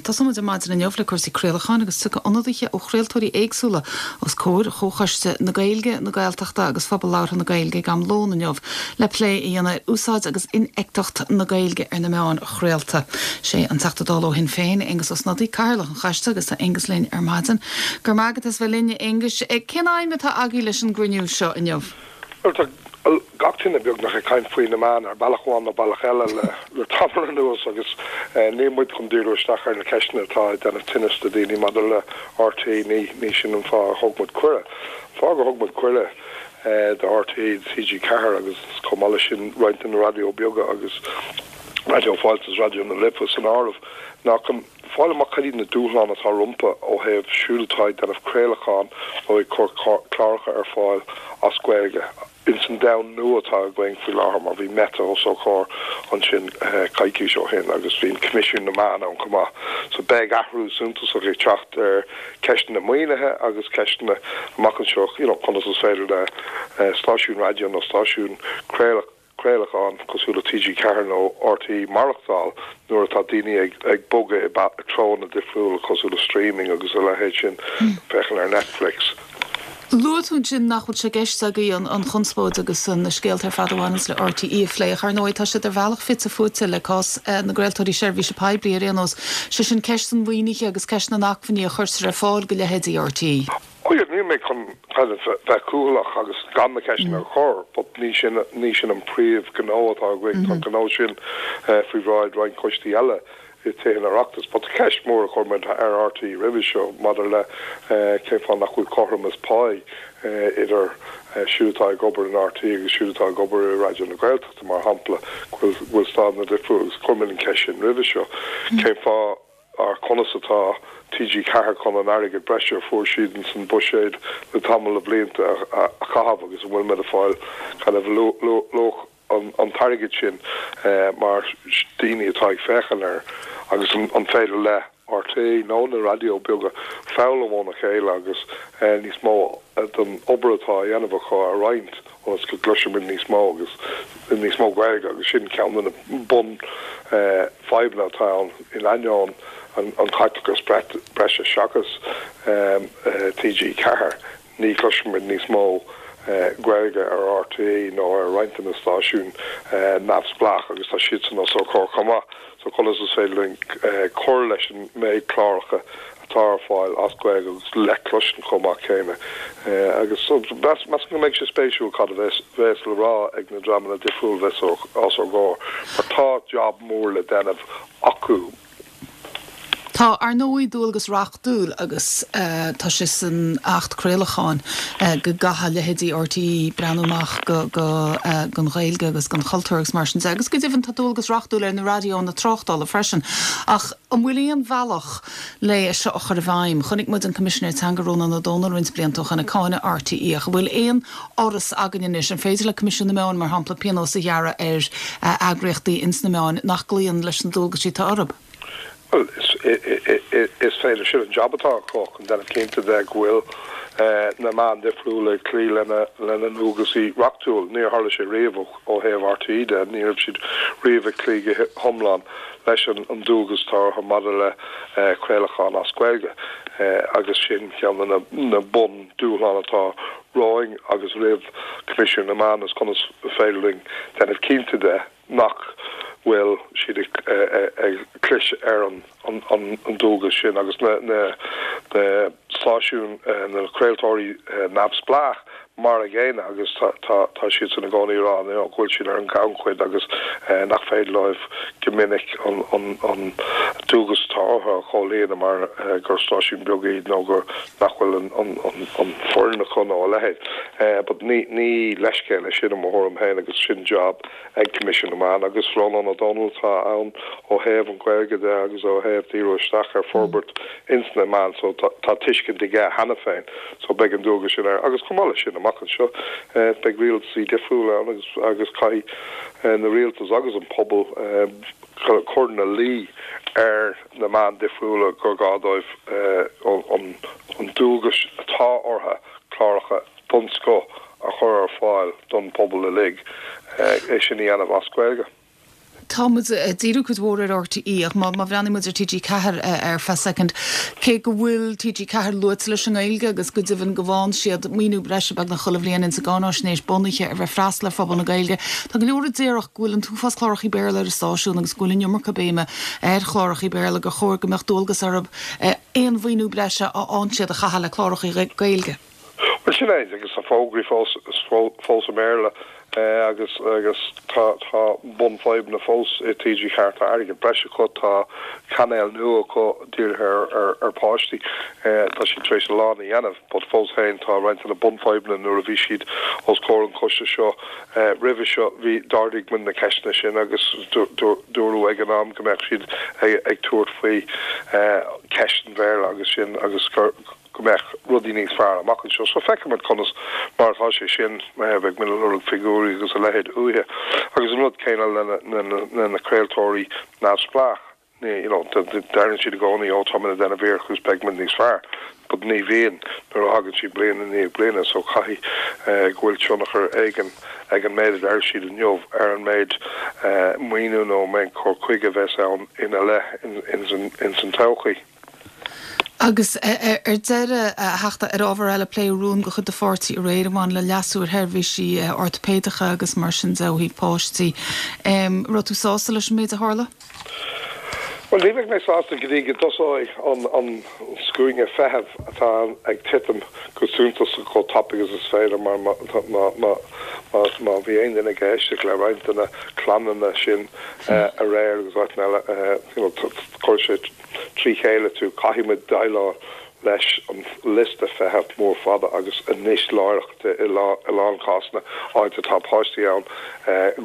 Tosóidh muid ar maidin inniu le cúrsaí craolacháin agus tiocfaidh ionadaithe ó chraoltóirí éagsúla os comhair Chomhchoiste na Gaeilge, na Gaeltachta agus Phobal Labhartha na Gaeilge ag am lóin inniu le plé a dhéanamh ar úsáid agus infheictheacht na Gaeilge ar na meáin chraolta. Sé an Teachta Dála ó Shinn Féin, Aengus Ó Snodaigh, Cathaoirleach an Choiste agus tá Aengus linn ar maidin. Go raibh maith agat as bheith linn, a Aonghuis. Cén aidhm atá agaibh leis an gcruinniú seo inniu? Bhuel, tá gach duine beagnach ag caint faoi na meáin ar bealach amháin nó bealach eile le tamall anuas agus níl muid chun díriú isteach ar na ceisteanna atá ag déanamh tinnis do daoine maidir le RTÉ, ní sin an fáth a thug muid cuireadh. An fáth gur thug muid cuireadh do RTÉ, TG4 agus chomh maith leis sin roinnt de na raidió beaga agus Raidió Fáilte is Raidió na Life san áireamh ná chun fáil amach cad iad na dúshláin atá rompu ó thaobh siúd atá ag déanamh craolacháin nó ag cur cláracha ar fáil as Gaeilge ins an domhan nua atá againn faoi láthair mar bhí Meta os ár gcomhair ansin coicís ó shin agus bhí an Coimisiún na Meán ann chomh maith. So beidh athrú suntasach ag teacht ar ceisteanna maoinithe agus ceisteanna amach anseo you know conas is féidir le stáisiún raidió nó stáisiún craolacháin craolacháin cosúil le TG4 nó RTÉ maireachtáil nuair atá daoine ag bogadh i dtreonna difriúla cosúil le streaming agus a leithéid sin, féachaint ar Netflix. Luaigh tú ansin nach bhfuil sé i gceist agaibh an chonspóid agus na scéalta ar fad a bhaineanns le RTÉ a phlé ach ar ndóigh tá siad ar bhealach fite fuaite le cás na gcraoltóirí seirbhíse poiblí ar aon nós, sé sin ceist an mhaoinithe agus ceist na n-acmhainní a chuirtear ar fáil do leithéidí RTÉ. Oh yeah, níl mé chun kind of bheith cúthaileach agus gan na ceisteanna a chur but ní sin, ní sin an príomh ghnó atá againn, tá an gnó sin faoi bhráid roinnt coistí eile i Tithe an Oireachtais. But tá ceist mhór a chuir muid ar RTÉ roimhe seo maidir le cén fáth nach bhfuil cothromas páí idir siúd atá ag obair in RTÉ agus siúd atá ag obair i Raidió na Gaeltachta mar shampla, go bhfuil stádanna difriúla agus chuir muid an ceist sin roimhe seo. Cén fáth Ar conas atá TG4 chun an airgead breise a fuair siad ins an buiséad le tamall de bhlianta a chaitheamh agus an bhfuil muid ag fáil kind of luach an t-airgead sin mar daoine atá ag féachaint air agus an féidir le RTÉ nó na raidió beaga foghlaim óna chéile agus níos mó den obair atá á dhéanamh acu a roinnt. ionas go gcloisfimid níos mó agus níos mó Gaeilge agus sin ceann de na bun fadhbanna atá ann in ainneoin an chaiteachas breise seachas TG4 ní chloisfimid níos mó Gaeilge ar RTÉ nó ar roinnt de na stáisiúin neamhspleách agus tá siadsan os ár gcomhair chomh maith so conas is féidir linn cur leis an méid cláracha atá ar fáil as Gaeilge agus le cloisint chomh maith céanna. Agus measaim go mbeidh sé spéisiúil cad a bheas le rá ag na dreamanna difriúla a bheas os ár gcomhair, mar tá jab mór le déanamh acu. Tá, ar ndóigh, dualgas reachtúil agus tá sé san Acht Craolacháin go gcaithfidh leithéidí RTÉ breathnú amach go don Ghaeilge agus don chultúr agus mar sin de. Agus go deimhin tá dualgas reachtúil ar na raidiónna tráchtála freisin. Ach an bhfuil aon bhealach le é seo a chur i bhfeidhm. Chonaic muid an Coimisinéir Teanga Rónán Ó Domhnaill roinnt blianta ó shin ag cáineadh RTÉ ach an bhfuil aon fhoras againn anois, an féidir le Coimisiún na Meán, mar shampla, pionós a ghearradh ar eagraíochtaí ins na meáin nach gcloíonn leis na dualgaisí atá orthu? Bhuel, is féidir. Sin an jab atá acu, chun déanamh cinnte de go bhfuil na meáin difriúla ag cloí lena ndualgaisí reachtúil. Níor tharla sé riamh ó thaobh RTÉ de, ní raibh siad riamh ag cloí go hiomlán leis an dualgas atá orthu maidir le craolachán as Gaeilge agus sin ceann de na bun dúshláin atá romhainn agus roimh Coimisiún na Meán is conas is féidir linn déanamh cinnte de nach bhfuil siad ag clis ar an ndualgas sin agus na stáisiúin, na craoltóirí neamhspleách mar a gcéanna agus tá siadsan i gcónaí ag rá go bhfuil siad ar an ngannchuid agus nach féidir leo go minic an dualgas atá orthu a chomhlíonadh mar gur stáisiúin beaga iad nó gur nach bhfuil an foireann acu nó a leithéid. But ní leithscéal é sin i mo thuairim féin agus sin job ag Coimisiún na Meán agus Rónán Ó Domhnaill atá ann ó thaobh an Ghaeilge de agus ó thaobh díriú isteach ar forbairt ins na meáin so tá tuiscint aige cheana féin so beidh an dualgas sin air agus chomh maith leis sin amach anseo beidh rialtasaí difriúla ann agus agus caithfidh na rialtas agus an pobal cur ina luí ar na meáin difriúla gur gá dóibh an dualgas atá orthu cláracha den scoth a chur ar fáil don phobal uilig, é sin a dhéanamh as Gaeilge. Tá muid ag díriú cuid mhór ar RTÉ ach má bhreathnaíonn muid ar TG4 ar feadh soicind, cé go bhfuil TG4 luaite leis an nGaeilge agus go deimhin go bhfaigheann siad maoiniú breise beagnach chuile bhliain ins an gcáináisnéis bunaithe ar bheith freastal ar phobal na Gaeilge, tá go leor a déarfadh go bhfuil an t-uafás clárachaí Béarla ar an stáisiún agus go bhfuil an iomarca béime ar chlárachaí Béarla gur chóir go mbeadh dualgas orthu aon mhaoiniú breise a fhaigheann siad a chaitheamh le clárachaí Gaeilge. Bhuel, sin é, agus tá fógraí fós fós i mBéarla agus agus tá tá bunfhadhbanna fós i TG4, tá airgead breise acu, tá cainéal nua acu dírithe ar ar ar pháistí, tá siad tar éis a lán a dhéanamh but fós féin tá roinnt de na bunfhadhbanna nuair a bhí siad os comhair an choiste seo roimhe seo bhí d'ardaigh muid na ceisteanna sin agus dúradh ag an am go mbeadh siad ag ag tabhairt faoi ceist an Bhéarla agus sin agus gur go mbeadh rudaí níos fearr amach anseo. So feicfimid conas mar atá sé sin, beidh muid ag lorg figiúirí agus a leithéid uathu. Agus an rud céanna le na craoltóirí neamhspleách, you know, deireann siad i gcónaí ó tá muid ag déanamh iarracht agus beidh muid níos fearr, but ní bhíonn nuair a thagann siad bliain i ndiaidh bliana. So caithfidh go bhfuil tionchar éigin ag an méid a deir siad inniu ar an méid maoiniú nó an méid cur chuige a bheas ann ina leith ins an todhchaí. Agus ar deireadh, a Theachta, ar ábhar eile, pléadh rún de chuid do pháirtí aréir a bhain le leasú ar sheirbhísí ortaipéideacha agus mar sin de ó thaobh páistí. Raibh tú sásta leis an méid a tharla? Bhuel, ní bheidh mé sásta go dtí go dtosóidh an scuaine feithimh atá ag titim go suntasach chomh tapaidh agus is féidir mar má bhí aon duine ag éisteacht le roinnt de na clannanna sin aréir agus áiteanna eile, you know, chuir sé trí chéile tú, caithfidh muid déileáil leis an liosta feithimh mór fada agus anois láithreach i lán cásanna áit atá páistí ann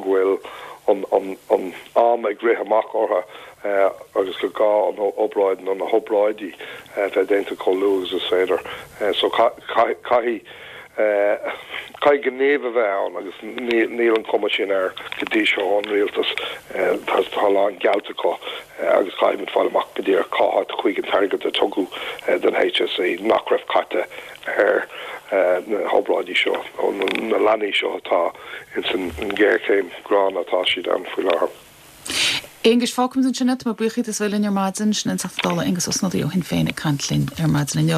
go bhfuil an am ag rith amach orthu agus gur gá an obráid nó na hobráidí bheith déanta chomh luath agus is féidir. So caithfidh Caithfidh gníomh a bheith ann agus níl an chuma sin air go dtí seo ón rialtas. Tá a lán geallta acu agus caithfidh muid fáil amach go díreach cá háit a chuaigh an t-airgead a tugadh don HSE nach raibh caite ar na hobráidí seo nó na leanaí seo atá ins an ngéarchéim ghránna atá siad ann faoi láthair. Aengus, fágfaimid ansin é. Tá mé buíoch díot as bheith linn ar maidin. Sin an Teachta Dála Aengus Ó Snodaigh ó Shinn Féin ag caint linn ar maidin inniu.